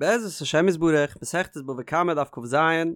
בעזרת השם יתברך, מסכת בבא קמא דף כז,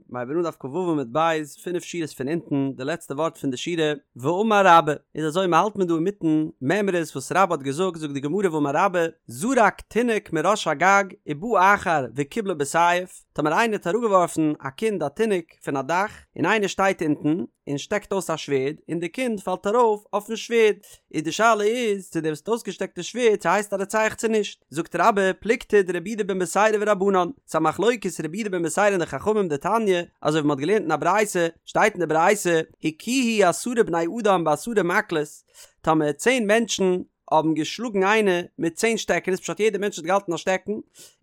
מ'הייבט אן דף כו עמוד ב', פינף שורות פון אונטן, די לעצטע ווארט פון די שורה, ואמר רבה, איז אזוי מ'האלט מען דא אינמיטן מימרות וואס רבה האט געזאגט, זאגט די גמרא ואמר רבה, זרק תינוק מראש הגג ובא אחר וקיבלו בסייף, טאמער איינער האט אראפגעווארפן א קינד א תינוק פון א דאך, און איינער שטייט אונטן, און שטעקט אויס א שווערד, און די קינד פאלט ארויף אויפן שווערד, איז די שאלה איז צו דער וואס האט אויסגעשטעקט די שווערד צו הייסט א רוצח צו נישט, זאגט רבה, פלוגתא דרבי יהודה בן בתירא ורבנן, ס'איז א מחלוקת רבי יהודה בן בתירא און די חכמים דתניא, אזוי ווי מ'האט געלערנט אין א ברייתא, שטייט אין די ברייתא, הכוהו עשרה בני אדם בעשרה מקלות, טאמער צען מענטשן האבן געשלאגן איינער מיט צען שטעקענעס פשט יעדער מענטש האט געהאלטן א שטעקן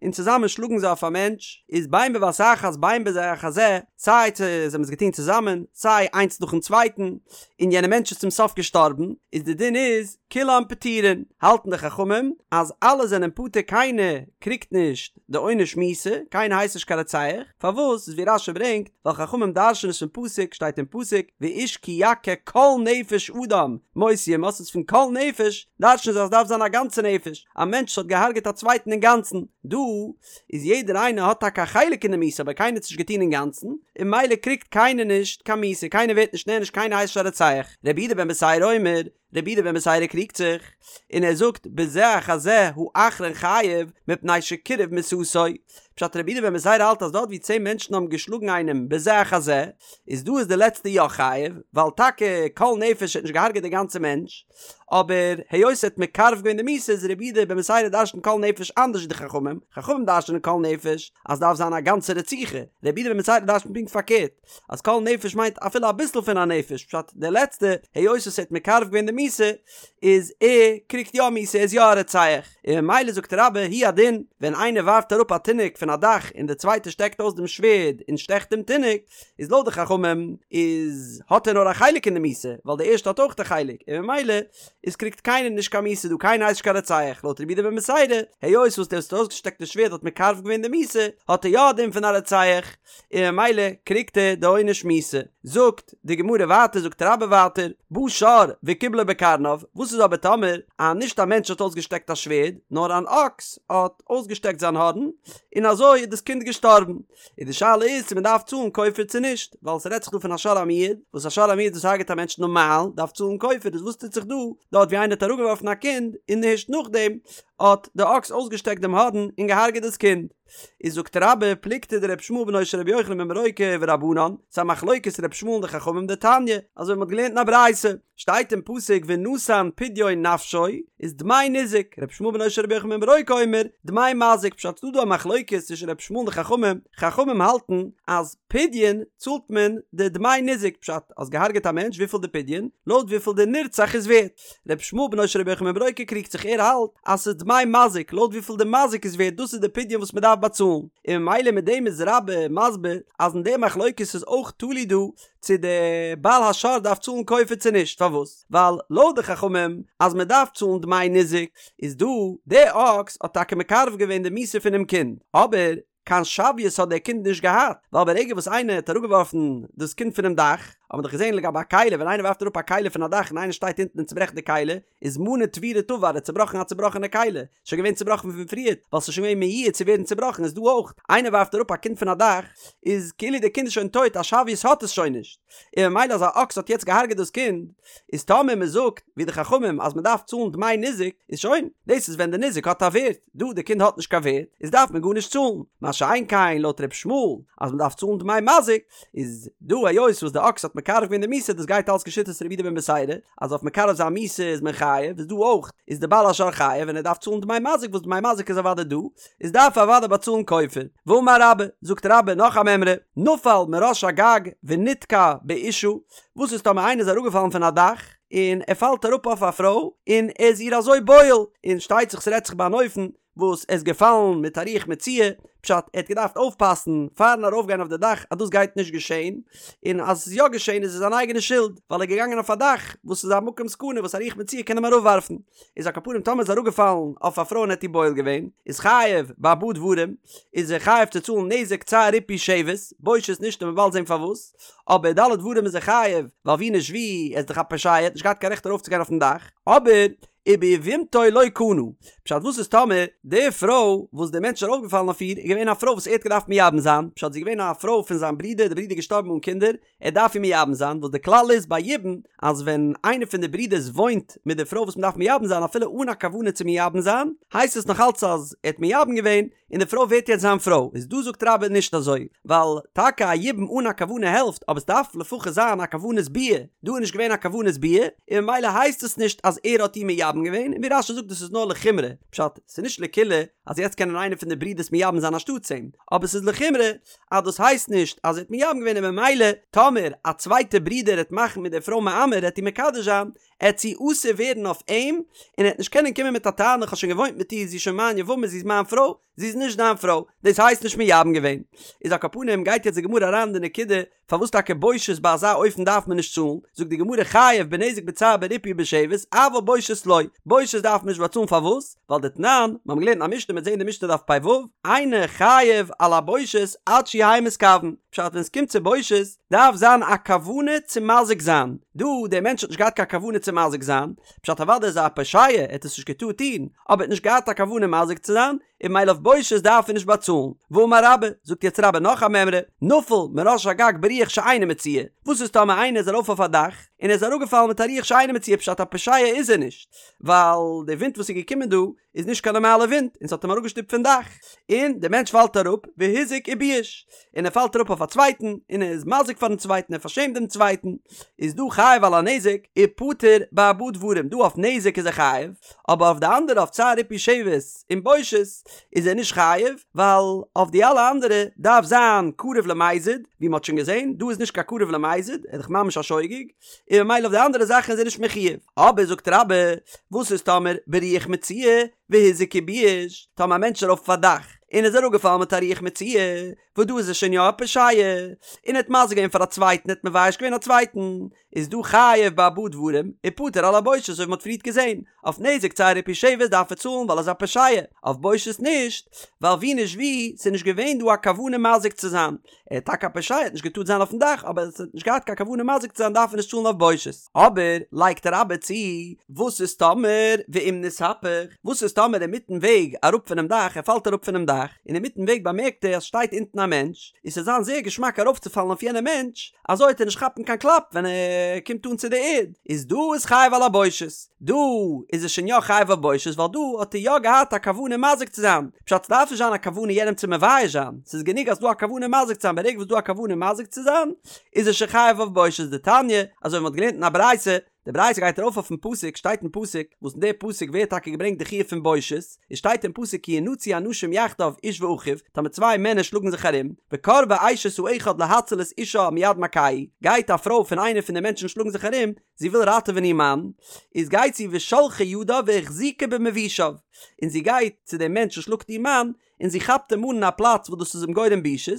און צוזאמען שלאגן זיי אויף א מענטש איז בין בבת אחת בין בזה אחר זה סיי צו זיי האבן עס געטון צוזאמען סיי איינס נאכן צווייטן און יענער מענטש איז צום סוף געשטארבן איז די דין איז כולם פטורין האלטן די חכמים אז אלע זענען פטור קיינער קריגט נישט די עונש מיתה, קיינער הייסט נישט קיין רוצח, פארוואס? איז ווי רש"י ברענגט, ווייל חכמים דרש'ן עס פון פסוק, שטייט אין פסוק, ואיש כי יכה כל נפש אדם, מות יומת, איז פון כל נפש, דרש'ן זיי אז ס'דארף זיין א גאנצע נפש, א מענטש וואס האט געהארגעט א צווייטן אינגאנצן, דא איז יעדער איינער האט טאקע א חלק אין די מיתה אבער קיינער האט עס נישט געטון אינגאנצן, און ממילא קריגט קיינער נישט קיין מיתה, קיינער ווערט נישט נענש קיינער הייסט נישט א רוצח, רבי יהודה בן בתירא אומר, רבי יהודה בן בתירא קריגט זיך, און ער זאגט בזה אחר זה האחרון חייב מפני שקירב מיתתו, פשט רבי יהודה בן בתירא האלט אז דארט ווי צען מענטשן האבן געשלאגן איינעם בזה אחר זה, איז דא איז די לעצטע יא חייב, ווייל טאקע כל נפש האט נישט געהארגעט די גאנצע מענטש, אבער היות ער האט מקרב געווען די מיתה איז רבי יהודה בן בתירא דרש'נט כל נפש אנדערש ווי די חכמים, חכמים דרש'נען כל נפש אז דארף זיין א גאנצע רציחה, רבי יהודה בן בתירא דרש'נט פונקט פארקערט. אז כל נפש מיינט אפילו אביסל פון א נפש, פשט דער לעצטע, היות עס האט מקרב געווען די מיתה, איז ער קריגט יא מיתה, ער איז יא א רוצח, און ממילא זאגט רבה הוא הדין, ווען איינער ווארפט אראפ א תינוק פון א דאך און דער צווייטער שטעקט אויס דעם שווערד און שטעכט דעם תינוק, איז לויט די חכמים איז האט ער נאר א חלק אין די מיתה, ווייל דער ערשטע האט אויך א חלק, און ממילא איז קריגט קיינער נישט קיין מיתה דא, קיינער הייסט נישט קיין רוצח, לויט רבי יהודה בן בתירא, היות וואס דער וואס האט אויסגעשטעקט די שווערד האט מקרב געווען די מיתה, האט ער יא א דין פון א רוצח. און ממילא קריגט ער די עונש מיתה. זאגט די גמרא ווייטער זאגט רבה ווייטער, בא שור וקיבלו בקרניו, וואס איז אבער טאמער א נישט א מענטש האט אויסגעשטעקט א שווערד, נאר אן אקס האט אויסגעשטעקט זיין הארן, און אזוי איז דאס קינד געשטארבן, און די שאלה איז צו מען דארף צאלן כופר צו נישט, ווייל ס'רעדט זיך דא פון א שור המועד, וואס א שור המועד וואס הרג'ט א מענטש נארמאל דארף צאלן כופר, איז וואס טוט זיך דא, דארט ווי איינער האט אראפגעווארפן א קינד, און הערשט נאכדעם האט די אקס אויסגעשטעקט דעם הארן און געהארגעט דאס קינד. איז זאגט רבה פלוגתא דר' ישמעאל בנו של ר' יוחנן בן ברוקה ורבנן, ס'איז א מחלוקת ר' ישמעאל און די חכמים דתניא, אזוי ווי מ'האט געלערנט אין א ברייתא, שטייט אין פסוק ונתן פדיון נפשו, איז דמי ניזק, ר' ישמעאל בנו של ר' יוחנן בן ברוקה אומר, דמי מזיק, פשט ס'דא דא א מחלוקת צווישן ר' ישמעאל און די חכמים, חכמים האלטן אז פדיון צאלט מען די דמי ניזק, פשט האסט געהארגעט א מענטש וויפיל די פדיון? לויט וויפיל די נרצח איז ווערט. ר' ישמעאל בנו של ר' יוחנן בן ברוקה קריגט זיך ער האלט אז ס'איז דמי מזיק לויט וויפיל די מזיק איז ווערט דאס איז די פדיון וואס מ'דארף באצאלן און ממילא מיט דעם איז רבה מסביר אז אין די מחלוקת איז אויך תלוי דא צו די בעל השור דארף צאלן כופר צו נישט פארוואס ווייל לויט די חכמים אז מ'דארף צאלן דמי ניזק איז דא די אקס האט טאקע מקרב געווען די מיתה פונעם קינד אבער קיין שוויות האט דער קינד נישט געהאט, ווייל ברגע וואס איינער האט אראפגעווארפן דאס קינד פונעם דאך, האט מען דאך געזען לגבי א כלי, ווען איינער ווארפט אראפ א כלי פון א דאך און איינער שטייט אונטן און צוברעכט די כלי, איז מנה תבירה תבר, ער האט צובראכן א צובראכענע כלי, שוין געווען צובראכן פון פריערט, ווייל ס'איז שוין געווען מיועד צו ווערן צובראכן, איז דא אויך, איינער ווארפט אראפ א קינד פון א דאך, איז כאילו דער קינד איז שוין טויט, א שוויות האט עס שוין נישט, און ממילא אז א אקס האט יעצט געהארגעט דאס קינד, איז טאמער מען זאגט ווי די חכמים אז מען דארף צאלן דמי ניזק, איז שוין, דאס איז ווען די ניזק האט א ווערט, דא די קינד האט נישט קיין ווערט, איז דארף מען גארנישט צאלן, מה שאין כן לויט ר' ישמעאל אז מען דארף צאלן דמי מזיק, איז דא היות וואס די אקס האט מקרב געווען די מיתה דאס גייט אלס כשיטת רבי יהודה בן בתירא אז אויף מקרב זיין מיתה איז מען חייב, איז דא אויך איז די בעל השור חייב און ער דארף צאלן דמי מזיק וואס דמי מזיק איז אוודאי דא, איז דארף ער אוודאי באצאלן כופר. ואמר רבה, זאגט רבה נאך א מימרא, נפל מראש הגג ונתקע באשה, וואס איז טאמער איינער איז אראפגעפאלן פון א דאך, און ער פאלט אראפ אויף א פרוי, און ער איז איר אזוי בועל, און שטייט זיך ס'רעדט זיך ביי אן אופן וואס ער איז געפאלן מיט א רוח מצויה, פשט ער האט געדארפט אויפפאסן פארן ארויפגיין אויף די דאך אז דאס גייט נישט געשען, און אז עס איז יא געשען איז עס זיין אייגענע שולד, ווייל ער איז געגאנגען אויף א דאך וואס איז א מקום סכנה וואס א רוח מצויה קען אים אראפווארפן. איז על כל פנים טאמער איז אראפגעפאלן אויף א פרוי און האט איר בועל געווען, איז חייב בארבעה דברים, איז ער חייב צו צאלן נזק צער ריפוי שבת, בושת נישט און מ'וועט באלד זען פארוואס, אבער ד' דברים איז ער חייב, ווייל ווי נישט ווי, ער איז דאך א פושע, ער האט נישט געהאט קיין רעכט ארויפצוגיין אויפן דאך, אבער וביבמתו לא קנה, פשט וואס איז טאמער די פרוי וואס די מענטש איז ארויפגעפאלן אויף איר איז געווען א פרוי וואס ער האט געדארפט מייבם זיין, פשט זי איז געווען א פרוי פון זיין ברודער, די ברודער איז געשטארבן אן קינדער, ער דארף איר מייבם זיין, וואס די כלל איז ביי יבום אז ווען איינער פון די ברודערס וואוינט מיט די פרוי וואס מען דארף מייבם זיין אפילו אן א כוונה צו מייבם זיין, הייסט עס נאך אלץ אז ער האט מייבם געווען און די פרוי ווערט יעצט זיין פרוי, איז דא זאגט רבה נישט אזוי, ווייל טאקע א יבום אן א כוונה העלפט אבער עס דארף לפחות זיין א כוונת ביאה, דא איז נישט געווען א כוונת ביאה, און ממילא הייסט עס נישט אז ער האט איר מייבם געווען, און ווי רש"י זאגט דאס איז נאר לחומרא, פשט, ס'איז נישט לקולא אז יעצט קענען איינער פון די ברודערס מייבם זיין אנשטאטס אים, אבער ס'איז לחומרא אז דאס הייסט נישט אז ער האט מייבם געווען און ממילא טאמער א צווייטע ברודער העט מאכן מיט די פרוי מאמר העט איר מקדש זיין, עט זי אסור ווערן אויף אים, און ער העט נישט קענען קומען מיט א טענה כ'האב שוין געוואוינט מיט איר זי איז שוין מיין יבמה זי איז מיין פרוי, זי איז נישט דיין פרוי, דאס הייסט נישט מייבם געווען. איז על כל פנים גייט יעצט די גמרא אריין אין די נקודה פארוואס טאקע בושת ביי אזא אופן דארף מען נישט צאלן, זאגט די גמרא חייב בנזק בצער בריפוי ובשבת אבל בושת לא, בושת דארף מען נישט באצאלן פארוואס? ווייל דתנן, מיר האבן געלערנט א משנה מ'עט זעהן די משנה דף פ"ו, אינו חייב על הבושת עד שיהא מתכוון, פשט ווען עס קומט צו בושת דארף זיין א כוונה צו מזיק זיין, דא דער מענטש האט נישט געהאט קיין כוונה צו מזיק זיין, פשט אוודאי איז ער א פושע ער האט עס נישט געטארט טון, אבער ער האט נישט געהאט א כוונה מזיק צו זיין, און ממילא אויף בושת דארף ער נישט באצאלן. ואמר רבה, זאגט יעצט רבה נאך א מימרא, נפל מראש הגג ברוח שאינה מצויה, וואס איז טאמער איינער איז ארויף אויף א דאך, און ער איז אראפגעפאלן מיט א רוח שאינה מצויה פשט א פושע איז ער נישט, ווייל די ווינט וואס איז געקומען דא איז נישט קיין נארמאלע ווינט און ס'האט אים אראפגעשטופט פון דאך, און די מענטש פאלט אראפ והזיק ובייש, און ער פאלט אראפ אויף א צווייטן, און ער איז מזיק פארן צווייטן, ער פארשעמט דעם צווייטן, איז דא חייב על הנזק, ופטור בארבעה דברים, דא אויף נזק איז ער חייב, אבער אויף די אנדערע אויף צער ריפוי שבת און בושת איז ער נישט חייב, ווייל אויף די אלע אנדערע דארף זיין קרוב למזיד, ווי מ'האט שוין געזען, דא איז נישט קיין קרוב למזיד, ער איז דאך ממש א שוגג, און ממילא אויף די אנדערע זאכן איז ער נישט מחויב. אבער זאגט רבה, וואס איז טאמער ברוח מצויה והזיק ובייש, טאמער א מענטש איז ארויף אויף א דאך און איז אראפגעפאלן מיט א רוח מצויה, וואס דא איז ער שוין יא א פושע, און ער האט מזיק געווען פאר א צווייטן, ער האט מבייש געווען א צווייטן, איז דא חייב בארבעה דברים, ופטור על הבושת אזוי ווי מ'האט פריערט געזען, אויף נזק צער ריפוי שבת דארף ער צאלן ווייל ער איז א פושע, אויף בושת נישט, ווייל ווי נישט ווי, ס'איז נישט געווען דא א כוונה מזיק צו זיין, ער איז טאקע א פושע, ער האט נישט געטארט זיין אויפן דאך, אבער ער האט נישט געהאט קיין כוונה מזיק צו זיין דארף ער נישט צאלן אויף בושת. אבער, לייגט רבה צו, וואס איז טאמער ואם נתהפך, וואס איז טאמער אינמיטן וועג אראפ פונעם דאך, ער פאלט אראפ פונעם דאך, און אינמיטן וועג באמערקט ער אז שטייט אונטן א מענטש, און ס'וועט זיין זייער געשמאק ארויפצופאלן אויף יענעם מענטש, אזוי וועט ער נישט כאפן קיין קלאפ ווען ער קומט אן צו די ערד, איז דא איז חייב על הבושת, דא איז ער שוין יא חייב אויף בושת ווייל דא האט ער יא געהאט א כוונה מזיק צו זיין, פשט ס'דארף נישט זיין א כוונה יענעם צו מבייש זיין, ס'איז גענוג אז ס'דא א כוונה מזיק צו זיין, ברגע וואס ס'דא א כוונה מזיק צו זיין איז ער שוין חייב אויף בושת, דתניא, אזוי ווי מ'האט געלערנט אין א ברייתא, די ברייתא גייט ארויף אויפן פסוק, שטייט אין פסוק, וואס אין די פסוק ווערט טאקע געברענגט די חיוב פון בושת, עס שטייט אין פסוק כי ינצו אנשים יחדיו איש ואחיו, טאמער צוויי מענער שלאגן זיך ארום, וקרבה אשת האחד להציל את אישה מיד מכהו, גייט א פרוי פון איינער פון די מענטשן שלאגן זיך ארום, זי וויל ראטעווען איר מאן, איז גייט זי ושלחה ידה והחזיקה במבושיו, און זי גייט צו דעם מענטש וואס שלאגט איר מאן, און זי כאפט אים אן אין א פלאץ וואס דאס איז אים גורם בושות,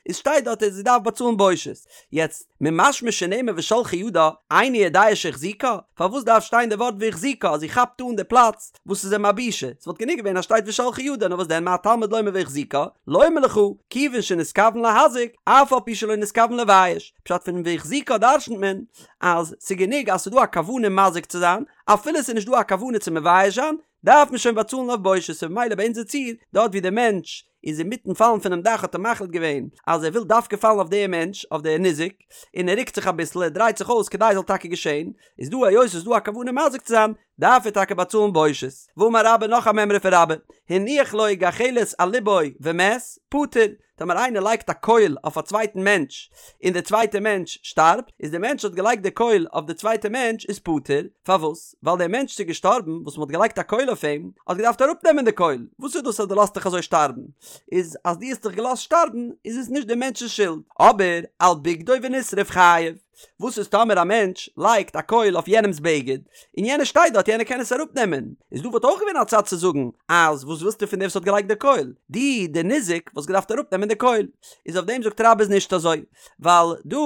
איז שטייט דארט אז זי דארף באצאלן בושת. יעצט, ממשמע שנאמר ושלחה ידה, איני יודע שהחזיקה, פארוואס דארף שטיין די ווארט והחזיקה אז זי כאפט אן די פלאץ וואס איז אים א בושה, ס'וואלט גענוג געווען אז שטייט ושלחה ידה, נאר וואס דען מה תלמוד לומר והחזיקה, לומר לך, כיוון שנתכוון להזיק, אף על פי שלא נתכוון לבייש, פשט פון והחזיקה דרשנ'ט מען, אז ס'גענוג אז ס'דא א כוונה מזיק צו זיין, אפילו ס'איז נישט דא א כוונה צו מבייש זיין, דארף מען שוין באצאלן אויף בושת, און ממילא ביי אונזער ציור, דארט ווי דער מענטש איז אינמיטן פאלן פונעם דאך האט ער מחליט געווען אז ער וויל דווקא פאלן אויף דעם מענטש, אויף דער ניזק, און ער רוקט זיך אביסל, ער דרייט זיך אויס כדי ס'זאל טאקע געשען, איז דא היות ס'איז דא א כוונה מזיק צו זיין, דארף ער טאקע באצאלן בושת. ואמר רבה נאך א מימרא פון רבה, הניח לו גחלת על לבו ומת, פטור, טאמער איינער לייגט א קויל אויף א צווייטן מענטש און דער צווייטער מענטש שטארבט, איז דער מענטש האט געלייגט די קויל אויף די צווייטע מענטש איז פטור, פארוואס? ווייל דער מענטש איז געשטארבן וואס מען האט געלייגט א קויל אויף אים, האט געדארפט אראפנעמען די קויל, וואס איז דאס אז דו לאזט דיך אזוי שטארבן? איז אז דו האסט דיך געלאזט שטארבן איז עס נישט דער מענטש'ס שולד, אבער על בגדו ונשרף חייב. וואס איז טאמער א מענטש לייגט א קויל אויף יענעמס בגד, און יענער שטייט דארט יענער קען עס אראפ נעמען, איז דא וואלט אויך געווען א צד צו זאגן אז וואס ווילסטו פון דער וואס האט געלייגט די קויל, דו דער ניזק וואלסט געדארפט אראפ נעמען די קויל, איז אויף דעם זאגט רבה איז נישט אזוי, ווייל דא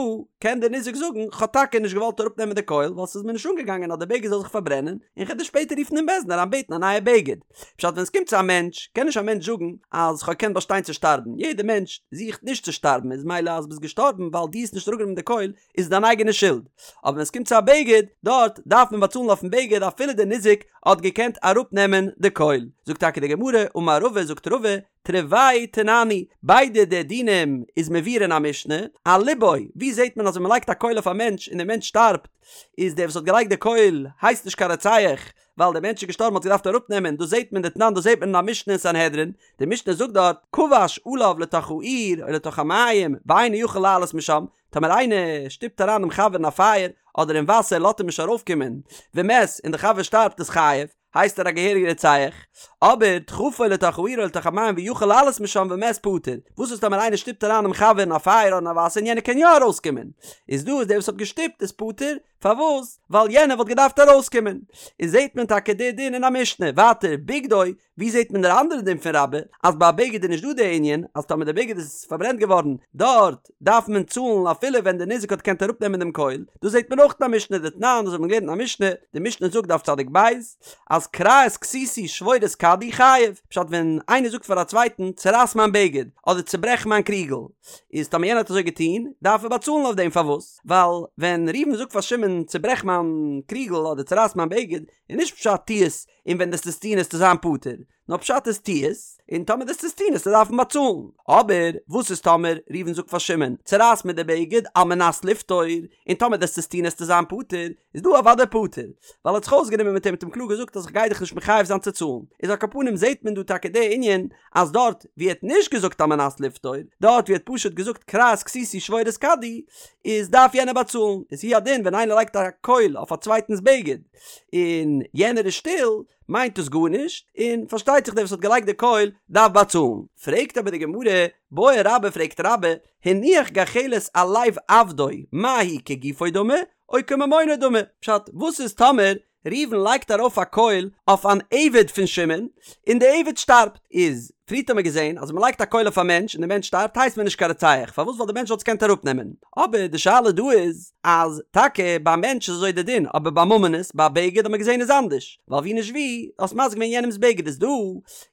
קען דער ניזק זאגן כ'האב טאקע נישט געוואלט אראפ נעמען די קויל ווייל ס'איז מיר נישט אנגעגאנגען אז די בגד זאל זיך פארברענען, און כ'וועל דיר שפעטער רופן אין בית דין אריין בעטן א נייע בגד. פשט ווען עס קומט צו א מענטש קען נישט א מענטש זאגן אז כ'האב געקענט באשטיין צו שטארבן, יעדער מענטש זוכט נישט צו שטארבן איז מילא אז ביסט געשטארבן ווייל דו האסט נישט אראפגענומען די קויל איז דיין. דיין אייגענע שולד, אבער ווען עס קומט צו א בגד, דארט דארף מען באצאלן אויפן בגד אפילו די ניזק האט געקענט אראפנעמען די קויל. זאגט טאקע די גמרא, אמר רבא, זאגט רבא, תרוייהו תננהי, ביידע די דינים איז מבואר אין א משנה, על לבו, ווי זעט מען אז ווען מען לייגט א קויל אויף א מענטש און דער מענטש שטארבט, איז דער וואס האט געלייגט די קויל הייסט נישט קיין רוצח, ווייל דער מענטש איז געשטארבן האט געדארפט אראפנעמען, דאס זעט מען דתנן דאס זעט מען אין א משנה אין סנהדרין, די משנה זאגט דארט, כבש עליו לתוך האור או לתוך המים ואינו יכול לעלות משם, טאמער איינער שטופט אריין דעם חבר אין א פייער אדער אין וואסער לאזט אים נישט ארויפקומען, ומת, און דער חבר שטארבט איז חייב, הייסט ער א געהעריגע רוצח, אבער דחפו לתוך האור או לתוך המים ויכול לעלות משם ומת פטור, וואס איז טאמער איינער שטופט אריין דעם חבר אין א פייער אדער אין א וואסער און יענער קען יא ארויסקומען, איז דא איז דער וואס האט געשטופט איז פטור, פארוואס? ווייל יענער וואלט געדארפט ארויסקומען. איז זעהט מען טאקע די דין אין א משנה. ווייטער, בגדו, ווי זעהט מען דער אנדערע דין פון רבה, אז ביי א בגד איז נישט דא די ענין, אז טאמער די בגד איז פארברענט געווארן, דארט דארף מען צאלן אפילו ווען די ניזק האט געקענט אראפנעמען דעם קויל, דאס זעהט מען אויך אין א משנה דתנן, דאס האט מען געלערנט אין א משנה, די משנה זאגט דף צדיק ב', אז קרע את כסותי שבור את כדי חייב, פשט ווען איינער זאגט פאר א צווייטן צורייס מיין בגד, אדער צוברעך מיין קריגל, איז טאמער יענער האט אזוי געטון, דארף ער באצאלן אויף דעם, פארוואס? ווייל ווען ראובן זאגט פאר שמעון צוברעך מיין קריגל אדער צורייס מיין בגד, איז נישט פשט טו עס און ווען דו'סט עס טון עסטו זיין פטור, נאר פשט איז טו עס און טאמער דו'סט עס טון עסטו דארפן באצאלן. אבער וואס איז טאמער ראובן זאגט פאר שמעון צורייס מיר די בגד על מנת לפטור, און טאמער דו'סט עס טון עסטו זיין פטור, איז דא אוודאי פטור, ווייל ער האט זיך אויסגענומען מיט אים האט אים קלאר געזאגט אז איך גיי דיך נישט מחייב זיין צו צאלן, איז על כל פנים זעט מען דא טאקע די ענין אז דארט ווי ער האט נישט געזאגט על מנת לפטור, דארט ווי ער האט פשוט געזאגט קרע את כסותי שבור את כדי, איז דארף יענער באצאלן, איז הוא הדין ווען איינער לייגט א קויל אויף א צווייטנס בגד און יענער איז שטיל, מיינט עס גארנישט, און פארשטייט זיך דער וואס האט געלייגט די קויל דארף באצאלן. פרעגט אבער די גמרא, בעי רבה פרעגט רבה, הניח גחלת על לב עבדו, מהו כגופו דמי, או כממונו דמי, פשט, וואס איז טאמער ראובן לייגט ארויף א קויל אויף אן עבד פון שמעון, און די עבד שטארבט, איז פריערט האט מען געזען אז ווען מען לייגט א קויל אויף א מענטש און די מענטש שטארבט הייסט מען נישט קיין רוצח, פארוואס ווייל די מענטש וואלט עס געקענט אראפנעמען, אבער די שאלה דא איז אז טאקע ביי א מענטש איז אזוי די דין אבער ביי ממונות ביי א בגד האט מען געזען איז אנדערש, ווייל ווי נישט ווי האסט מזיק געווען יענעמס בגד איז דא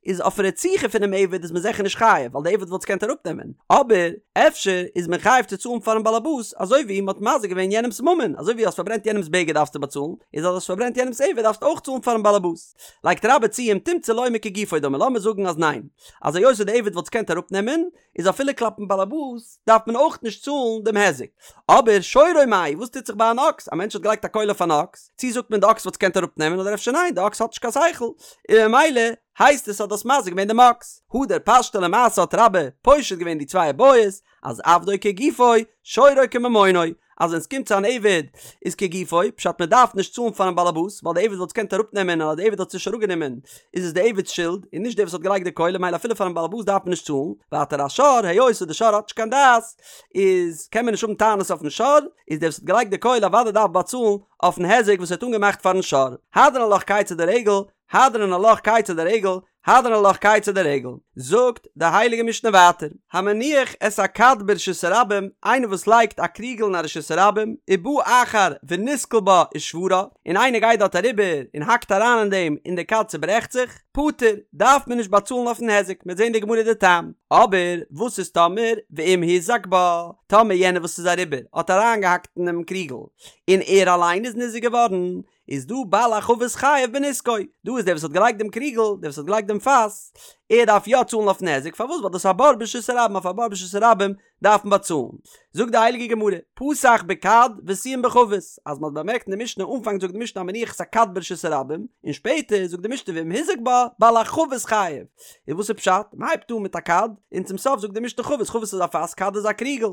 איז אויף רציחה פונעם עבד איז מען זיכער נישט חייב ווייל די עבד וואלט עס געקענט אראפנעמען, אבער אפשר איז מען חייב צו צאלן פארן באלעבאס אזוי ווי מען האט מזיק געווען יענעמס ממון, אזוי ווי האסט פארברענט יענעמס בגד דארפסטו באצאלן, איז אז האסט פארברענט יענעמס עבד דארפסטו אויך צאלן פארן באלעבאס. לייגט רבה צו אם תמצא לומר כגופו דמי לאמיר זאגן אז ניין, אז היות די עבד וואלט עס געקענט אראפנעמען, איז אפילו כלפין באלעבאס דארף מען אויך נישט צאלן דעם היזק. אבער שורו מאי, וואס טוט זיך ביי אן אקס? א מענטש האט געלייגט א קויל אויף אן אקס, צי זאגט מען די אקס וואלט עס געקענט אראפנעמען אדער אפשר ניין די אקס האט נישט קיין שכל, און ממילא הייסט עס אז דו האסט מזיק געווען דעם אקס. הדר פשטה למעשה האט רבה פושט געווען די צוויי בעיות, אז עבדו כגופו, שורו כממונו, אז ווען ס'קומט צו אן עבד איז כגופו, פשט מען דארף נישט צאלן פארן באלעבאס, ווייל די עבד וואלט עס געקענט אראפנעמען און אז די עבד האט עס נישט אראפגענומען איז עס די עבד'ס שולד און נישט דער וואס האט געלייגט די קויל ממילא אפילו פארן באלעבאס דארף מען נישט צאלן, ווייטער א שור, היות וואס די שור האט נישט קיין דעת איז קען מען נישט האבן טענות אויפן שור, איז דער וואס האט געלייגט די קויל אוודאי דארף באצאלן אויפן היזק וואס ער האט אנגעמאכט פארן שור. הדרן עלך כיצד הרגל, הדרן עלך כיצד הרגל, הדרן עלך כיצד הרגל, זאגט די הייליגע משנה ווייטער, המניח את הכד ברשות הרבים, איינער וואס לייגט א קריגל אין א רשות הרבים, ובא אחר ונתקל בה ושברה, און איינער גייט דארט אריבער און האקט אריין אין דעם און די כד צוברעכט זיך, פטור, דארף מען נישט באצאלן אויפן היזק, מ'וועט זען די גמרא די טעם. אבער וואס איז טאמער ואם הוזק בה, טאמער יענער וואס איז אריבער האט אריינגעהאקט אינעם קריגל, און ער אליין איז ניזוק געווארן, איז דא בעל החבית חייב בנזקו, דא איז דער וואס האט געלייגט דעם קריגל, דער וואס האט געלייגט דעם פאס, ער דארף יא צאלן אויפן היזק, פארוואס? ווייל דאס איז א בור ברשות הרבים, אויף א בור ברשות הרבים דארף מען באצאלן. זאגט די הייליגע גמרא, פתח בכד וסיים בחבית, אז מען האט באמערקט אין די משנה, אנפאנג זאגט די משנה המניח את הכד ברשות הרבים, און שפעטער זאגט די משנה ואם הוזק בה, בעל החבית חייב. איז וואס איז פשט? מען הייבט אן מיט א כד, און צום סוף זאגט די משנה חבית, חבית איז א פאס, כד איז א קריגל.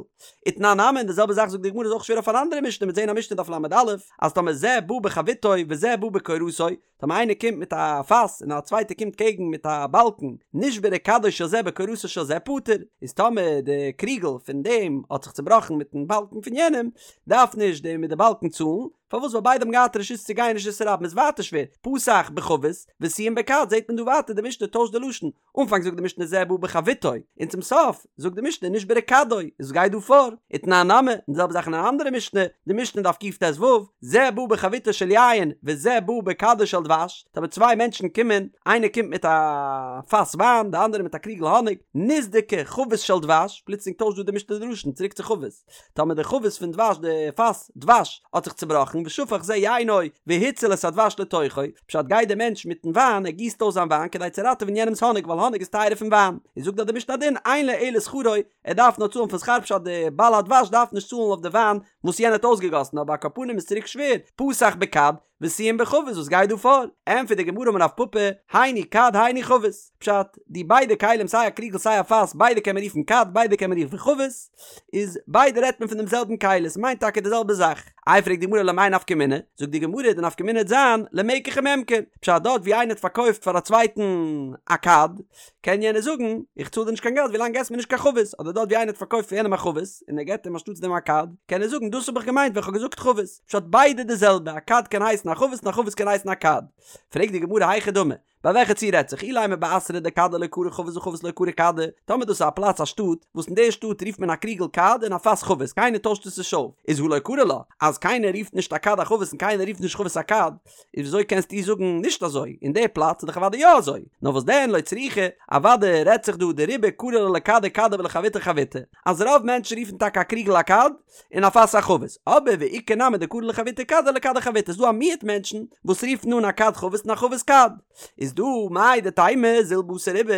ותנן נמי, און די זעלבע זאך זאגט די גמרא איז אויך שווער אויף אן אנדערע משנה, מ'וועט זעהן א משנה דף ל"א, אז טאמער זה בא בחביתו וזה בא בקורתו, טאמער איינער קומט מיט א פאס און א צווייטער קומט קעגן מיט א באלקן, נשברה כדו של זה בקורתו של זה פטור, איז טאמער די קריגל פון דעם האט זיך צובראכן מיטן באלקן פון יענעם, דארף נישט דער מיט די באלקן צאלן, פארוואס ווייל ביידע האבן געהאט רשות צו גיין אין רשות הרבים איז ווייטער שווער, פתח בחבית וסיים בכד זעט מען דא ווייטער די משנה טוישט די לשון, אנפאנג זאגט די משנה זה בא בחביתו, און צום סוף זאגט די משנה נשברה כדו, איז וואס גייט דא פאר? ותנן נמי, און די זעלבע זאך אין אן אנדערע משנה, די משנה דף קט"ו, זה בא בחביתו של יין וזה בא בכדו של דבש, טאמער צוויי מענטשן קומען, איינער קומט מיט א פאס וויין, די אנדערע מיט א קריגל האניג, נסדקה חבית של דבש, פלוצלינג טוישט דא די משנה די לשון צוריק צו חבית, טאמער די חבית פון דבש, די פאס דבש, האט זיך צובראכן, ושפך זה יינו והציל את הדבש לתוכו, פשט גייט דער מענטש מיטן וויין, ער גיסט אויס זיין וויין כדי צו ראטעווען יענעמס האניג ווייל האניג איז טייערער פון וויין, איז זאגט דאך די משנה א דין, אין לו אלא שכרו, ער דארף נאר צאלן פון שכר פשט די בעל הדבש דארף נישט צאלן אויף די וויין וואס יענער האט אויסגעגאסן אבער על כל פנים איז צוריק שווער, פתח בכד, וסיים בחבית וואס גייט דא פאר? ענטפערט די גמרא אמר רב פפא, היינו כד היינו חבית, פשט, די ביידע כלים סיי א קריגל סיי א פאס ביידע קען מען רופן כד ביידע קען מען רופן חבית, איז ביידע רעדט מען פון דעם זעלבן כלי עס מיינט טאקע די זעלבע זאך. איי פרעגט די גמרא למאי נפקא מינה, זאגט די גמרא די נפקא מינה וועט זיין למקח וממכר, פשט דארט ווי איינער האט פארקויפט פאר א צווייטן א כד, קען יענער זאגן, איך צאל דיר נישט קיין געלט ווילאנג געסט מיר נישט קיין חבית, אדער דארט ווי איינער האט פארקויפט פאר יענעם א חבית, און ער געבט אים אנשטאטס דעם א כד, קען ער זאגן דאס האב איך געמיינט ווען כ'האב געזאגט חבית, פשט ביידע די זעלבע, א כד קען הייסן א חבית און א חבית קען הייסן א כד. פרעגט די גמרא היכי דמי, ביי וועלכע ציור רעדט זיך, אילימא באתרא דכדא לא קרי חבית וחבית לא קרי כדא, טאמער דאס איז א פלאץ א שטאט, וואס אין די שטאט רופט מען א קריגל כד און א פאס חבית, קיינער טוישט עס נישט אויף, איז הא לא קרי לה, אז קיינער רופט נישט א כד א חבית און קיינער רופט נישט חבית א כד, איז וויאזוי קענסטו זאגן נישט אזוי? אין די פלאץ איז דאך אוודאי יא אזוי. נאר וואס דען לא צריכא, אוודאי רעדט זיך דא דרובא קרי לה לכדא כדא ולחביתא חביתא, אז רוב מענטשן רופן טאקע א קריגל א כד, און א פאס א חבית, אבער ואיכא נמי דקרי לחביתא כדא ולכדא חביתא, ס'דא א מיעוט מענטשן וואס רופן אן א כד חבית און א חבית כד. איז דא מהו דתימא זיל בתר רובא,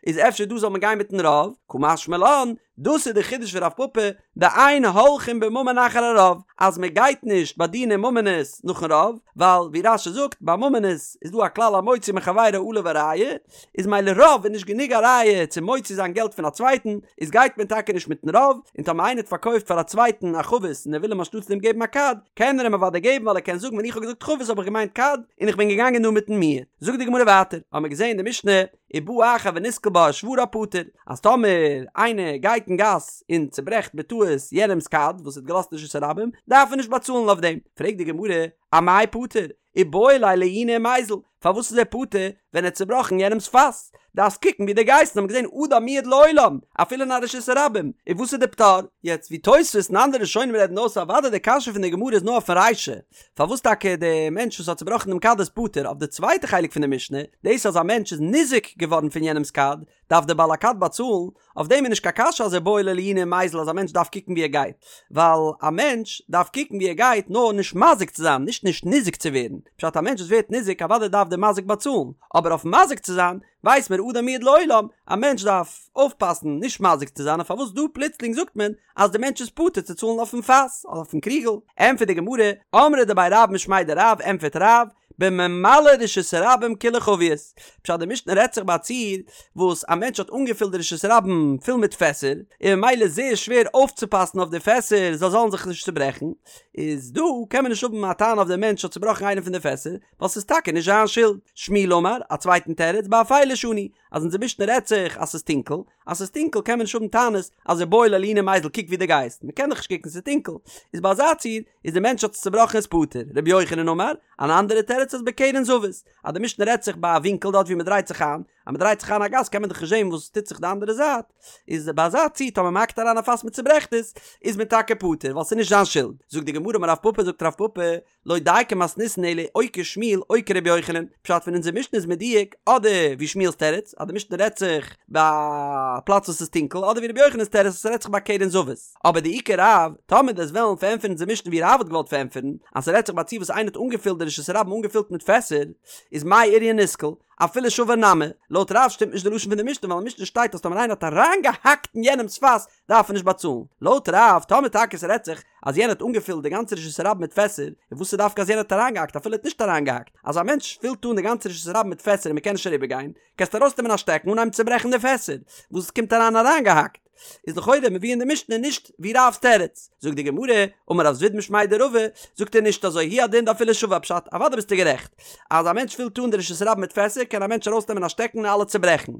איז אפשר דא זאל מען גיין מיטן רוב? קא משמע לן, דאס איז די חידוש פון רב פפא, דאין הולכין בממון אחר הרוב, אז מען גייט נישט ביי דיני ממונות נאכן רוב, ווייל ווי רש"י זאגט, ביי ממונות איז דא א כלל המוציא מחבירו עליו הראיה, איז ממילא רוב איז נישט גענוג א ראיה צו מוציא זיין געלט פון א צווייטן, איז גייט מען טאקע נישט מיטן רוב, און טאמער איינער האט פארקויפט פאר א צווייטן א חבית און ער וויל אים אנשטאטס דעם געבן א כד, קען ער אים אוודאי געבן ווייל ער קען זאגן ווען איך האב געזאגט חבית האב איך געמיינט כד, און איך בין געגאנגען נאר מיטן מיעוט. זאגט די גמרא ווייטער, האמער געזען אין די משנה, ובא אחר ונתקל בה ושברה פטור, אז טאמער איינער גייט אין גאס און צוברעכט בטעות יענעמס כד וואס ער האט געלאזט אין רשות הרבים, דארף ער נישט באצאלן אויף דעם. פרעגט די גמרא, אמאי פטור? איבעי ליה לעיוני ומיזל, פארוואס איז ער פטור ווען ער האט צובראכן יענעמס פאס? דארפסט קוקן ווי דו גייסט, און האבן געזען אדם מועד לעולם, אפילו אין א רשות הרבים, און וואס איז די פטור? יעצט ווי תוספות און אנדערע ראשונים רעדן אויס אוודאי די קשיא פון די גמרא איז נאר אויפן רישא, פארוואס טאקע די מענטש וואס האט צובראכן דעם כד איז פטור? אויף די צווייטע חלק פון די משנה, דאס אז א מענטש איז ניזוק געווארן פון יענעמס כד, דארף דער בעל הכד באצאלן, אויף דעם איז נישט קיין קשיא אז איבעי ליה לעיוני ומיזל אז א מענטש דארף קוקן ווי ער גייט, ווייל א מענטש דארף קוקן ווי ער גייט נאר נישט מזיק צו זיין, נישט נישט ניזוק צו ווערן, פשט א מענטש וואס ווערט ניזוק אוודאי דארף דער מזיק באצאלן, אבער אויף מזיק צו זיין ווייס מיר אדם מועד לעולם, א מענטש דארף אויפפאסן נישט מזיק צו זיין און פארוואס דא פלוצלינג זאגט מען אז די מענטש איז פטור צו צאלן אויפן פאס אדער אויפן קריגל? ענטפערט די גמרא, אמרי דבי רב משמיה דרב, ענטפערט רב, בממלא רשות הרבים כולה חביות, פשט די משנה רעדט זיך ביי א ציור וואס א מענטש האט אנגעפילט די רשות הרבים פול מיט פעסער, און ממילא איז זייער שווער אויפצופאסן אויף די פעסער זיי זאלן זיך נישט צוברעכן, איז דא קען מען נישט האבן א טענה אויף די מענטש האט צובראכן איינע פון די פעסער, ווייל ס'איז טאקע נישט זיין שולד. שמואל אמר, א צווייטן תירוץ, באפילה שנו, אז אונזער משנה רעדט זיך אז ס'איז טונקל, אז ס'איז טונקל קען מען נישט האבן טענות אז איבעי ליה לעיוני ומיזל קוק ווי דו גייסט, מ'קען דאך נישט קוקן ס'איז טונקל, איז ביי אזא ציור איז די מענטש האט עס צובראכן איז פטור. רבי יוחנן אמר, אן אנדערע תירוץ אז בקרן זווית, אז די משנה רעדט זיך ביי א ווינקל דארט ווי מ'דרייט זיך איין, אז מ'דרייט זיך איין א גאס קען מען דאך נישט זען וואס טוט זיך די אנדערע זייט, איז ביי אזא ציור טאמער מ'האקט אריין א פאס מ'צוברעכט עס, איז מען טאקע פטור ווייל ס'איז נישט זיין שולד. זאגט די גמרא אמר רב פפא זאגט רב פפא, לא דייקא מתניתין אלא או כשמואל או כרבי יוחנן, פשט פון אונזער משנה איז מדויק אדער ווי שמואל'ס תירוץ אז די משנה רעדט זיך ביי א פלאץ וואס איז טונקל אדער ווי רבי יוחנן'ס תירוץ אז ס'רעדט זיך ביי קרן זווית, אבער דאי כרב, טאמער דו'סט וועלן פארענטפערן אונזער משנה ווי רב האט געוואלט פארענטפערן אז ס'רעדט זיך ביי א ציור וואס איינער האט אנגעפילט די רשות הרבים אנגעפילט מיט פעסער, איז מאי איריא נתקל, אפילו שבר נמי, לויט רב שטימט נישט די לשון פון די משנה ווייל אין משנה שטייט אז טאמער איינער האט אריינגעהאקט אין יענעמ'ס פאס דארף ער נישט באצאלן. לויט רב, טאמער טאקע ס'רעדט זיך אז יענער האט אנגעפילט די גאנצע רשות הרבים מיט פעסער, און וואס איז דווקא אז יענער האט אריינגעהאקט אפילו ער האט נישט אריינגעהאקט, אז א מענטש פילט אן די גאנצע רשות הרבים מיט פעסער און מ'קען נישט אריבערגיין, קענסטו ארויסנעמען א שטעקן און אנהייבן צוברעכן די פעסער, וואס קומט אריין אריינגעהאקט? איז לכאורה מבואר אין די משנה נישט ווי רב'ס תירוץ. זאגט די גמרא, אמר רב זביד משמיה דרבא, זאגט ער נישט אזוי, הוא הדין דאפילו שבר פשט, אוודאי ביסטו גערעכט, אז א מענטש פילט אן די רשות הרבים מיט פעסער קען א מענטש ארויסנעמען א שטעקן און אלע צוברעכן,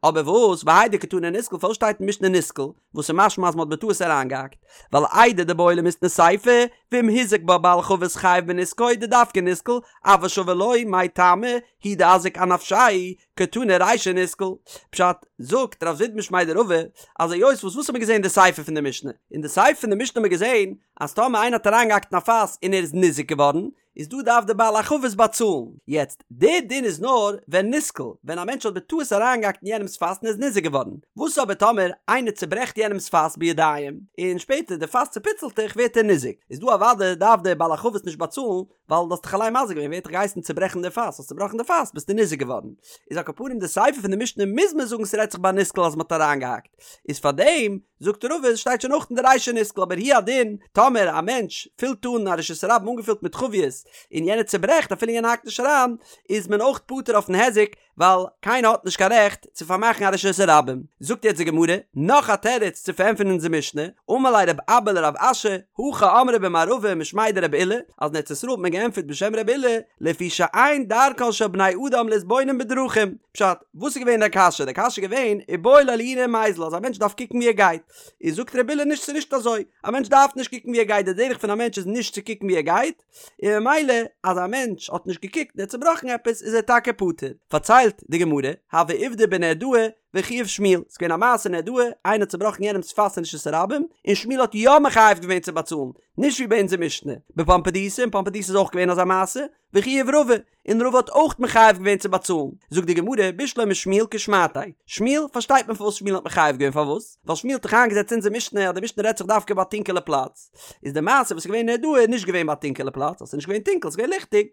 אבער וואס והאי דקתני נתקל פארוואס שטייט אין משנה נתקל, וואס איז משמע אז מען האט בטעות אריינגעהאקט, ווייל איידי דבעי למיתני סיפא, ואם הזיק בה בעל חבית חייב בנזקו דדווקא נסקל, אבל שבר לא, מאי טעמא, הוא דאזיק אנפשיה, קתני רישא נסקל. פשט, זאגט רב זביד משמיה דרבא, אז היות וואס וואס האט מען געזען אין די סיפא פון די משנה? אין די סיפא פון די משנה האט מען געזען אז טאמער איינער האט אריינגעהאקט אין א פאס און ער איז ניזוק געווארן, איז דא דארף די בעל החבית באצאלן. יעצט, די דין איז נאר ווען נסקל, ווען א מענטש האט בטעות אריינגעהאקט אין יענעמ'ס פאס און ער איז ניזוק געווארן. וואס אבער טאמער איינער צוברעכט יענעמ'ס פאס בידיים, און שפעטער די פאס צופיצלט זיך ווערט ער ניזוק. איז דא אוודאי דארף די בעל החבית נישט באצאלן, ווייל דו האסט דיך אליין מזיק געווען, ווער האט דיך געהייסן צוברעכן די פאס, האסט צובראכן די פאס ביסטו ניזוק געווארן. איז על כל פנים די סיפא פון די משנה מוז מען זאגן ס'רעדט זיך ביי נסקל אז מ'האט אריינגעהאקט. איז פארדעם זאגט רבא עס שטייט שוין אויך אין די רישא נסקל אבער הוא הדין טאמער א מענטש פילט אן א רשות הרבים אנגעפילט מיט חביות און יענער צוברעכט אפילו יענער האקט נישט אריין איז מען אויך פטור אויפן היזק ווייל קיינער האט נישט קיין רעכט צו פארמאכן א רשות הרבים. זאגט יעצט די גמרא נאך א תירוץ צו פארענטפערן אונזער משנה, אמר ליה רב אבא לרב אשי, הכי אמרי במערבא משמיה דרבי אילא, אז אין ארץ ישראל האט מען געענטפערט בשם רבי אילא, לפי שאין דרכן של בני אדם להתבונן בדרכים, פשט, וואס איז געווען די קשיא? די קשיא איז געווען, איבעי ליה לעיוני ומיזל, אז א מענטש דארף קוקן ווי ער גייט. איז זאגט רבי אילא נישט ס'איז נישט אזוי, א מענטש דארף נישט קוקן ווי ער גייט, די דרך פון א מענטש איז נישט צו קוקן ווי ער גייט, און ממילא אז א מענטש האט נישט געקוקט און ער האט צובראכן עפעס איז ער טאקע פטור. פארציילט די גמרא, הוה עובדא בנהרדעא וחייב שמואל, ס'איז געווען א מעשה אין נהרדעא, איינער האט צובראכן יענעמ'ס פאס אין רשות הרבים, און שמואל האט יא מחייב געווען צו באצאלן, נישט ווי ביי אונזער משנה. בפומבדיתא, אין פומבדיתא איז אויך געווען אזא מעשה, וחייב רבא, און רבא האט אויך מחייב געווען צו באצאלן, זאגט די גמרא, בשלמא שמואל כשמעתיה, שמואל, פארשטייט מען פארוואס שמואל האט מחייב געווען, פארוואס? ווייל שמואל האט דאך איינגעזעצט אונזער משנה אז די משנה רעדט זיך דווקא ביי א טונקעלע פלאץ, איז די מעשה וואס איז געווען אין נהרדעא איז נישט געווען ביי א טונקעלע פלאץ, אז ס'איז נישט געווען טונקל, ס'איז געווען ליכטיג,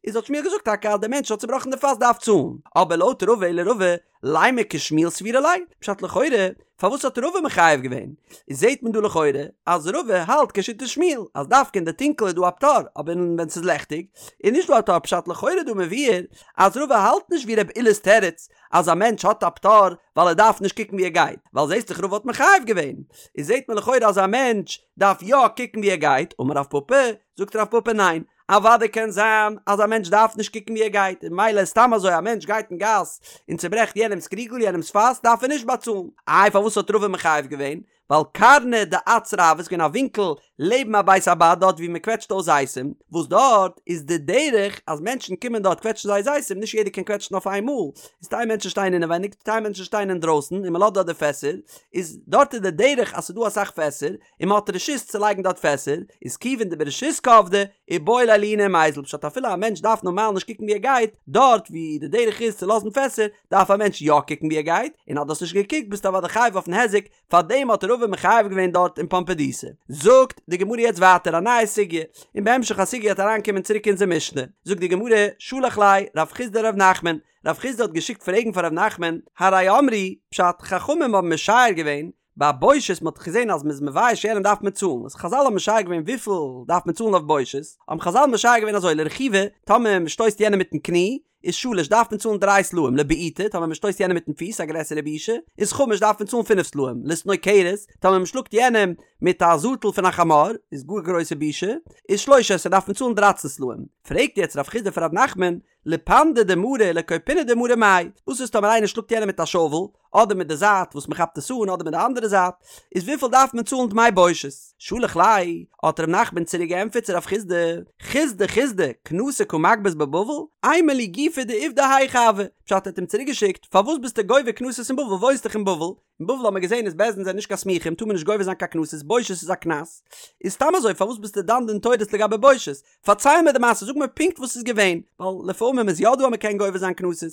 איז האט שמואל געזאגט טאקע אז דער מענטש האט צובראכן די פאס דארף צאלן, אבער לויט רבא אלא רבא, לימא כשמואל סבירא ליה, פשט לכאורה, פארוואס האט רבא מחייב געווען? איז זעהט מען דא לכאורה אז רבא האלט כשיטת שמואל אז דווקא אין די טונקל איז דא א פטור אבער ווען ס'איז לעכטיג איז נישט דא א פטור פשט לכאורה דא מבואר אז רבא האלט נישט ווי רבי אילא'ס תירוץ אז א מענטש האט א פטור ווייל ער דארף נישט קוקן ווי ער גייט ווייל זעהסט דאך רבא האט מחייב געווען איז זעהט מען לכאורה אז א מענטש דארף יא קוקן ווי ער גייט אמר רב פפא זאגט רב פפא ניין אוודאי קען זיין אז א מענטש דארף נישט קוקן ווי ער גייט, און ממילא סתם אזוי א מענטש גייט אין גאס און צוברעכט יענעמס קריגל, יענעמס פאס, דארף ער נישט באצאלן. איי פארוואס האט רבא מחייב געווען? ווייל קרנא דאצרא הוה, ס'איז געווען א ווינקל לעבן א בית הבד דארט ווי מען קוועטשט אויס זיתים, וואס דארט איז די דרך אז מענטשן קומען דארט קוועטשן זייער זיתים, נישט יעדער קען קוועטשן אויף איין מאל, איז טייל מענטשן שטייען אינעווייניג, טייל מענטשן שטייען אינדרויסן און מען לאזט דארט די פעסער, איז דארט איז די דרך אז ס'איז דא אסאך פעסער, און מען האט רשות צו לייגן דארט פעסער, איז כיוון דברשות קעבדי, איבעי ליה לעיוני ומיזל, פשט אפילו א מענטש דארף נארמאל נישט קוקן ווי ער גייט, דארט ווי די דרך איז צו לאזן פעסער, דארף א מענטש יא קוקן ווי ער גייט, און אז דו האסט נישט געקוקט ביסטו אוודאי חייב אויפן היזק, פארדעם האט רבא מחייב געווען דארט אין פומבדיתא. זאגט די גמרא יעצט ווייטער א נייע סוגיא, און בהמשך הסוגיא וועט אריינקומען צוריק אונזער משנה, זאגט די גמרא, שלח ליה רב חסדא לרב נחמן, רב חסדא האט געשיקט פרעגן פאר רב נחמן, הרי אמרו, פשט, חכמים האבן משער געווען, ביי בושת מ'האט דאך געזען אז מ'איז מבייש יענעם דארף מען צאלן, איז חזל האבן משער געווען וויפיל דארף מען צאלן אויף בושת, האבן חזל משער געווען אזוי לרכיבה, טאמער מ'שטויסט יענעם מיטן קני, איז שלש דארף מען צאלן דריי סלעים, לבעיטה, טאמער מ'שטויסט יענעם מיטן פיס, א גרעסערע בושה, איז חמש דארף מען צאלן פינף סלעים, לסנוקרת, טאמער מ'שלאגט יענעם מיט א זאטל פון א חמור, איז גאר גרויסע בושה, איז שלש עשרה דארף מען צאלן דרייצן סלעים. פרעגט יעצט רב חסדא פון רב נחמן, לפנדא דמרא ולכופינא דמרא מאי, וואס איז טאמער איינער שלאגט יענעם מיט א שאוול, אדער מיט די זייט וואס מען כאפט עס אן אדער מיט די אנדערע זייט, איז וויפיל דארף מען צאלן דמי בושת? שלח ליה, האט ר' נחמן צוריק געענטפערט צו רב חסדא, חסדא חסדא, קנסא קא מגבית בבבל, אימא לי גופא דעובדא היכי הוה, פשט ער האט אים צוריק געשיקט, פארוואס ביסטו גובה קנסות אין בבל, וואוינסט דאך אין בבל, אין בבל האט מען געזען אז בית דין זענען נישט קיין סמוכים טאר מען נישט גובה זיין קיין קנסות, בושת איז א קנס, איז סתם אזוי פארוואס ביסטו דן דין תורות לגבי בושת, פארצייל מיר די מעשה, זאג מיר פונקט וואס איז געווען, ווייל לפעמים איז יא דא אז מען קען גובה זיין קנסות,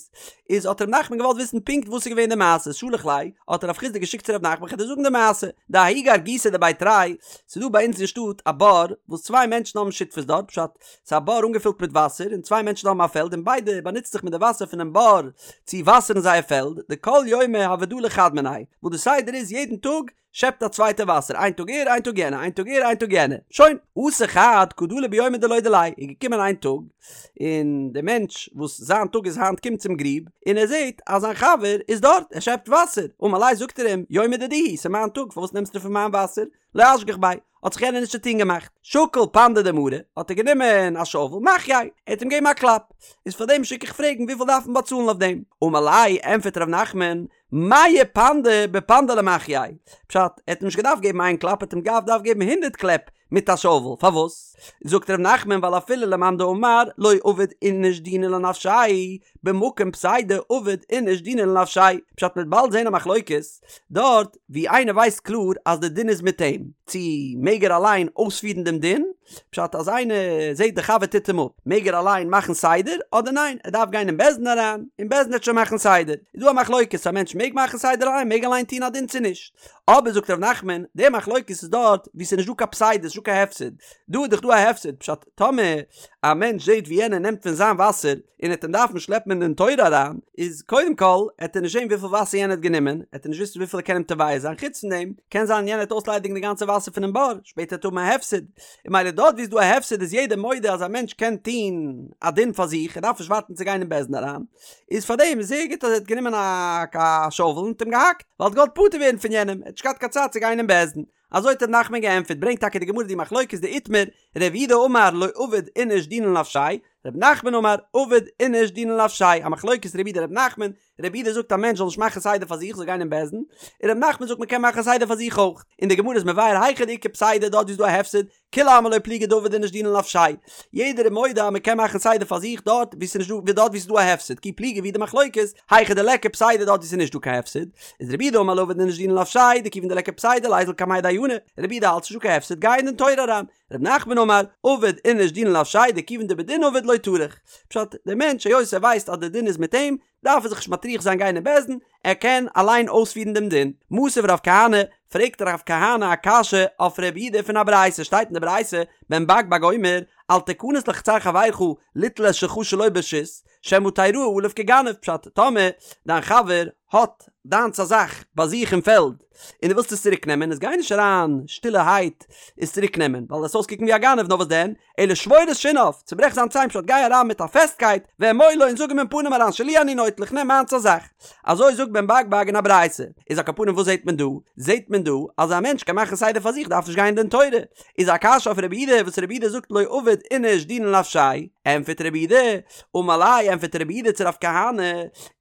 איז האט ר' נחמן געוואלט וויסן פונקט וואס איז געווען די מעשה, שלח ליה, האט רב חסדא געשיקט צו ר' נחמן כ'וועל דיר זאגן די מעשה, דההוא גרגותא דבי תרי, ס'איז דא ביי אונז אין שטאט א בור וואס צוויי מענטשן האבן שותפות דארט, פשט, ס'איז א בור אנגעפילט מיט וואסער און צוויי מענטשן האבן א פעלד און ביידע באנוצט זיך מיט די וואסער פונעם בור צו וואסערן זייער פעלד, דכל יומא הוה דלי חד מינייהו, וואס די סדר איז יעדן טאג שעפט א צווייטע וואסער, איין טאג ער, איין טאג יענער, איין טאג ער, איין טאג יענער. שוין. אתא חד קא דלי ביומא דלא דיליה, איז געקומען איין טאג, און דער מענטש וואס זיין טאג איז היינט קומט צום גריב, און ער זעט אז זיין חבר איז דארט, ער שעפט וואסער. אמר ליה זאגט ער אים, יומא דידי הוא, ס'איז מיין טאג, פארוואס נעמסטו פון מיין וואסער? לא אשגח ביה, האט זיך יענער נישט צוטון געמאכט. שקל פנדא דמרא, האט ער גענומען א שאוול, מחייה, ער האט אים געגעבן א קלאפ. איז פאר דעם שיק איך פרעגן וויפיל דארף מען באצאלן אויף דעם? אמר ליה, ענטפערט ר' נחמן, מאה פנדי בפנדא למחייה, פשט, ער האט אים נישט געדארפט געבן איין קלאפ, ער האט אים געדארפט געבן הונדרעט קלעפ מיט א שאוול, פארוואס? זאגט ר' נחמן ווייל אפילו למאן דאמר לא עביד איניש דינא לנפשיה, במקום פסידא עביד איניש דינא לנפשיה, פשט מ'וועט באלד זעהן א מחלוקת דארט ווי איינער ווייסט קלאר אז די דין איז מיט אים, צו מעג ער אליין אויספירן דעם דין, פשט אז איינער זעהט די חבר טוט אים אפ, מעג ער אליין מאכן סדר אדער ניין ער דארף גיין אין בית דין אריין און בית דין וועט שוין מאכן סדר, איז דא א מחלוקת א מענטש מעג מאכן סדר אליין מעג אליין טון א דין צו נישט, אבער זאגט ר' נחמן די מחלוקת איז דארט ווי ס'איז נישט דא קיין פסידא ס'איז נישט דא קיין הפסד, דא איז דאך דא א הפסד, פשט טאמער א מענטש זעהט ווי יענער נעמט פון זיין וואסער און ער וועט אים דארפן שלעפן אין דין תורה אריין, איז קודם כל עט ער נישט זעהן וויפיל וואסער יענער האט גענומען, עט ער נישט וויסן וויפיל ער קען אים תובע זיין, חוץ פון דעם קען זיין יענער וועט אויסליידיגן די גאנצע וואסער פונעם בור, שפעטער וועט ער האבן א הפסד, און ממילא דארט ווי איז דא א הפסד איז יעדער מודה אז א מענטש קען טוהן א דין פאר זיך, ער דארף נישט ווארטן צו גיין אין בית דין אריין, איז פארדעם איז זייער גוט אז ער האט גענומען א שאוול און האט אים געהאקט, ווייל ער האט געוואלט פטור ווערן פון יענעם, ער האט נישט געהאט קיין צייט צו גיין אין בית דין. אזוי האט ר' נחמן געענטפערט, ברענגט טאקע די גמרא די מחלוקת דאיתמר, ר' יהודה אמר לא עביד איניש דינא לנפשיה, ר' נחמן אמר עביד איניש דינא לנפשיה, א מחלוקת ר' יהודה ר' נחמן, ר' יהודה זאגט א מענטש זאל נישט מאכן סדר פאר זיך זאל גיין אין בית דין, און ר' נחמן זאגט מען קען מאכן סדר פאר זיך אויך, און די גמרא איז מבאר היכא דאיכא פסידא דארט ווי איז דא א הפסד, כולי עלמא לא פליגי דעביד איניש דינא לנפשיה, יעדער איז מודה אז מען קען מאכן סדר פאר זיך דארט ווי ס'איז נישט דא ווי דארט ווי ס'איז דא א הפסד, כי פליגי ווי די מחלוקת, היכא דליכא פסידא דארט ווי ס'איז נישט דא קיין הפסד, איז רבי יהודה אמר לא עביד איניש דינא לנפשיה דכיון דליכא פסידא ליזיל קמיה דיינא, רבי יהודה האלט ס'נישט דא קיין הפסד גיי אין דין תורה אריין, רב נחמן אמר עביד איניש דינא לנפשיה דכיון דבדין עביד לא טרח, פשט, דער מענטש היות ער ווייסט אז דער דין איז מיט אים, דארף ער זיך נישט מטריח זיין גיין אין בית דין, ער קען אליין אויספירן דעם דין. מתיב רב כהנא, פרעגט רב כהנא א קשיא אויף רבי יהודה פון א ברייתא, שטייט אין די ברייתא, בן בג בג אומר, אל תכנס לחצר חברך ליטול את שלך שלא ברשות, שמא תראה עליו כגנב, פשט, טאמער דיין חבר האט דיינס א זאך ביי זיך אין פעלד, און דו ווילסט עס צוריק נעמען, איז גיי נישט אריין שטילערהייט עס צוריק נעמען, ווייל וועסט אויסקוקן ווי א גנב, נאר וואס דען, אלא שבור את שיניו, צוברעך זיין ציין פשט גיי אריין מיט א פעסטקייט, ואמור לו און זאג אים אין פנים אריין שלי אני נוטל איך נעם מיינס א זאך. אזוי זאגט בן בג בג אין א ברייתא. איז על כל פנים וואס זעט מען דא? זעט מען דא אז א מענטש קען מאכן סדר פאר זיך דארף נישט גיין אין דין תורה. איז א קשיא אויף רבי יהודה וואס רבי יהודה זאגט לא עביד איניש דינא לנפשיה ענטפערט רבי יהודה, אמר ליה ענטפערט רבי יהודה צו רב כהנא,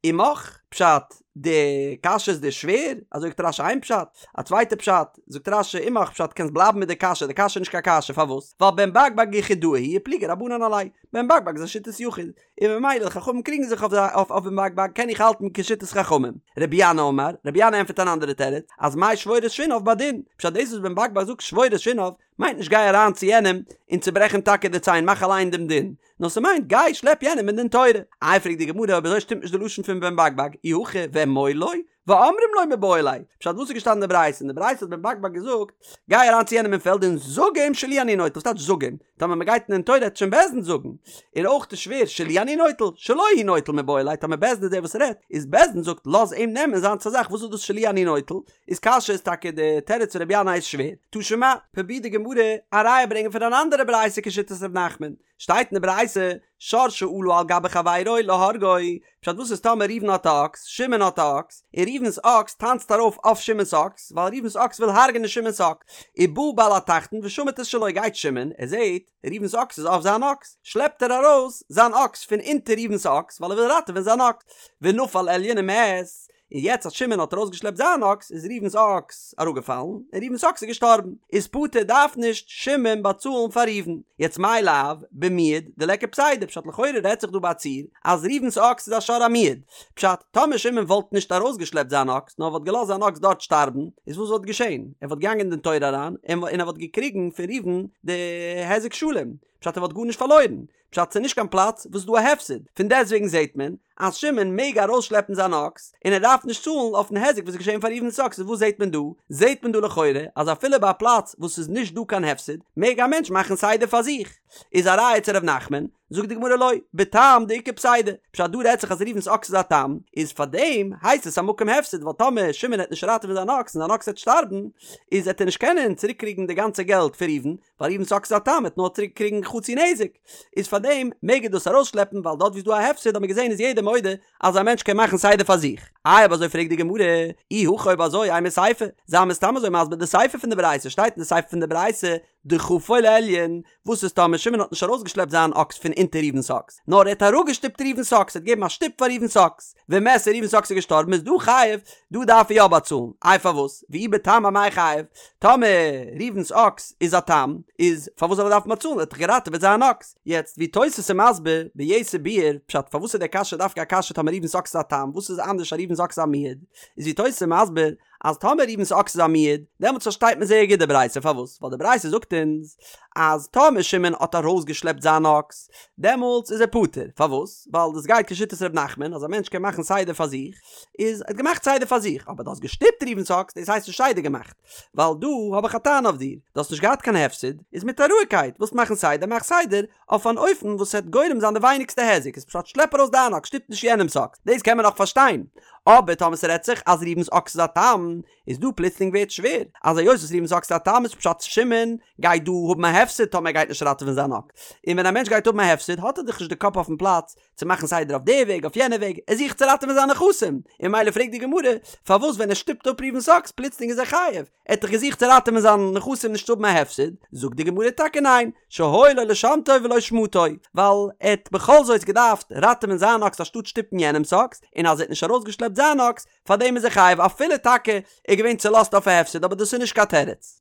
עמך, פשט, די קשיא איז דיר שווער? אזוי זאגט רש"י איין פשט, א צווייטע פשט, זאגט רש"י עמך פשט קענסט בלייבן מיט די קשיא, די קשיא איז נישט קיין קשיא, פארוואס? ווייל בן בג בג יחידאה הוא ופליגי רבנן עליה, בן בג בג איז א שיטת יחיד, און ממילא די חכמים קריגן זיך אויף אויף בן בג בג קען איך האלטן כשיטת חכמים. רבי ינאי אמר, רבי ינאי ענטפערט אן אנדערע תירוץ, אז מאי שבור את שיניו בדין, פשט דאס וואס בן בג בג זאגט שבור את שיניו, מיינט נישט גיי אריין צו יענעם און צוברעך אים טאקע די ציין מאך אליין דעם דין, נאר ס'מיינט גיי שלעפ יענעם אין דין תורה. איי פרעגט די גמרא אויב אזוי שטימט נישט די לשון פון בן בג בג, אי הכי ואמור לו, ואומרים לו מיבעי ליה, פשט וואס איז געשטאנען אין די ברייתא? אין די ברייתא האט בן בג בג געזאגט, גיי אריין צו יענעם אין פעלד און זאג אים שלי אני נוטל, וואס טייטש זאג אים? טאמער מ'גייט אין דין תורה העט שוין בית דין זאגן. און אויך איז שווער שלי אני נוטל, שלו הוא נוטל מיבעי ליה, טאמער בית דין איז דער וואס רעדט, איז בית דין זאגט לאז אים נעמען זיינס א זאך, וואס איז דאס שלי אני נוטל? איז קשיא איז טאקע די תירוץ פון רבי ינאי איז שווער. תא שמע, פרובירט די גמרא א ראיה ברענגען פון אן אנדערע ברייתא כשיטת ר' נחמן, שטייט אין די ברייתא, שור שעלה על גבי חברו להורגו, פשט וואס איז טאמער ראובן האט א אקס, שמעון האט א אקס, און ראובן'ס אקס טאנצט ארויף אויף שמעון'ס אקס, ווייל ראובן'ס אקס וויל הרג'נען שמעון'ס אקס, ובא בעל התחתון ושמט את שלו גייט שמעון, ער זעט, ראובן'ס אקס איז אויף זיין אקס, שלעפט ער ארויס זיין אקס פון אונטער ראובן'ס אקס, ווייל ער וויל ראטעווען זיין אקס, ונפל עליון ומת, און יעצט אז שמעון האט ארויסגעשלעפט זיין אקס איז ראובן'ס אקס אראפגעפאלן און ראובן'ס אקס איז געשטארבן, איז פטור דארף נישט שמעון באצאלן פאר ראובן. יעצט מאי לאו במועד דליכא פסידא פשט לכאורה רעדט זיך דא ביי א ציור אז ראובן'ס אקס איז א שור המועד, פשט טאמער שמעון וואלט נישט ארויסגעשלעפט זיין אקס נאר וואלט געלאזט זיין אקס דארט שטארבן איז וואס וואלט געשען? ער וואלט געגאנגען אין דין תורה אריין און ער וואלט געקריגן פון ראובן די היזק שלם, פשט ער וואלט גארנישט פארלוירן, פשט ס'איז נישט קיין פלאץ וואס איז דא א הפסד, פון דעסטוועגן זעהט מען אז שמעון מעג ארויסשלעפן זיין אקס און ער דארף נישט צאלן אויפן היזק וואס איז געשעהן פאר ראובן'ס אקס, איז וואס זעהט מען דא? זעהט מען דא לכאורה אז אפילו ביי א פלאץ וואס איז נישט דא קיין הפסד מעג א מענטש מאכן סדר פאר זיך, איז א ראיה צו ר' נחמן, זאגט די גמרא לא, בתם דאיכא פסידא, פשט דא רעדט זיך אז ראובן'ס אקס איז א תם, איז פארדעם הייסט עס א מקום הפסד ווייל טאמער שמעון העט נישט ראטעווען זיין אקס און זיין אקס העט שטארבן איז העט ער נישט קענען צוריק קריגן די גאנצע געלט פון ראובן, ווייל ראובן'ס אקס איז א תם וועט נאר צוריק קריגן חצי נזק, איז פאר דעם מעג ער דאס ארויסשלעפן ווייל דארט ווי איז דא א הפסד האט מען געזען איז יעדער מודה אז א מענטש קען מאכן סדר פאר זיך. איי אויב אזוי פרעגט די גמרא, אי הכי אויב אזוי אימא סיפא, זיי מיר סתם אזוי מסביר די סיפא פון די ברייתא, שטייט אין די סיפא פון די ברייתא דחפו לעליון, וואס איז טאמער שמעון האט נישט ארויסגעשלעפט זיין אקס פון. אונטער ראובן'ס אקס, נאר ער האט אראפגעשטופט ראובן'ס אקס, ער האט געגעבן א שטופ פאר ראובן'ס אקס, ומת און ראובן'ס אקס איז געשטארבן איז דא חייב, דא דארף ער יא באצאלן, איי פארוואס? ואי בתם אמאי חייב? טאמער ראובן'ס אקס איז א תם, איז פארוואס זאל ער דארפן באצאלן, ער האט דאך געראטעוועט זיין אקס. יעצט ווי תוס' איז מסביר ביתר ביאור פשט פארוואס איז די קשיא דווקא א קשיא טאמער ראובן'ס אקס איז א תם, וואס איז אנדערש אז ראובן'ס אקס איז א מועד, איז ווי תוס' איז מסביר אז טאמער ראובן'ס אקס איז א מועד, דעמאלטס פארשטייט מען זייער גוט די ברייתא, פארוואס? ווייל די ברייתא זאגט אונז אז טאמער שמעון האט ארויסגעשלעפט זיין אקס, דעמאלטס איז ער פטור, פארוואס? ווייל דאס גייט כשיטת ר' נחמן אז א מענטש קען מאכן סדר פאר זיך, איז ער האט געמאכט סדר פאר זיך, אבער דו האסט געשטופט ראובן'ס אקס, דאס הייסט נישט סדר געמאכט, ווייל דא האב איך א טענה אויף דיר, דו האסט נישט געהאט קיין הפסד, איז מיט א רואיגקייט, ווילסט מאכן סדר, מאך סדר, אויף אן אופן וואס וועט גורם זיין די ווייניגסטע היזק, איז פשט שלעפ ארויס דיין אקס, שטופ נישט יענעמ'ס אקס, דאס קען מען נאך פארשטיין, אבער טאמער ס'רעדט זיך אז ראובן'ס אקס איז א תם, איז דא פלוצלינג ווערט שווער, אז היות וואס ראובן'ס אקס איז א תם איז פשט שמעון גייט דא האבן א הפסד טאמער ער גייט נישט ראטעווען זיין אקס, און ווען א מענטש גייט האבן א הפסד האט ער דאך נישט די קאפ אויפן פלאץ צו מאכן סדר אויף די וועג אויף יענע וועג, ער זוכט צו ראטעווען זיינע נכסים, און ממילא פרעגט די גמרא פארוואס ווען ער שטופט אפ ראובן'ס אקס פלוצלינג איז ער חייב, ער האט דאך געזוכט צו ראטעווען זיינע נכסים נישט צו האבן א הפסד, זאגט די גמרא טאקע ניין, שהיה לו לשמטו ולא שמטו, ווייל ער האט בכל זאת געדארפט ראטעווען זיין אקס אנשטאט שטופן יענעמ'ס אקס, און אז ער האט נישט ארויסגעשלעפט זיין אקס, פארדעם איז ער חייב אפילו טאקע ער איז געווען צולאזט אויף א הפסד אבער דאס איז נישט קיין תירוץ.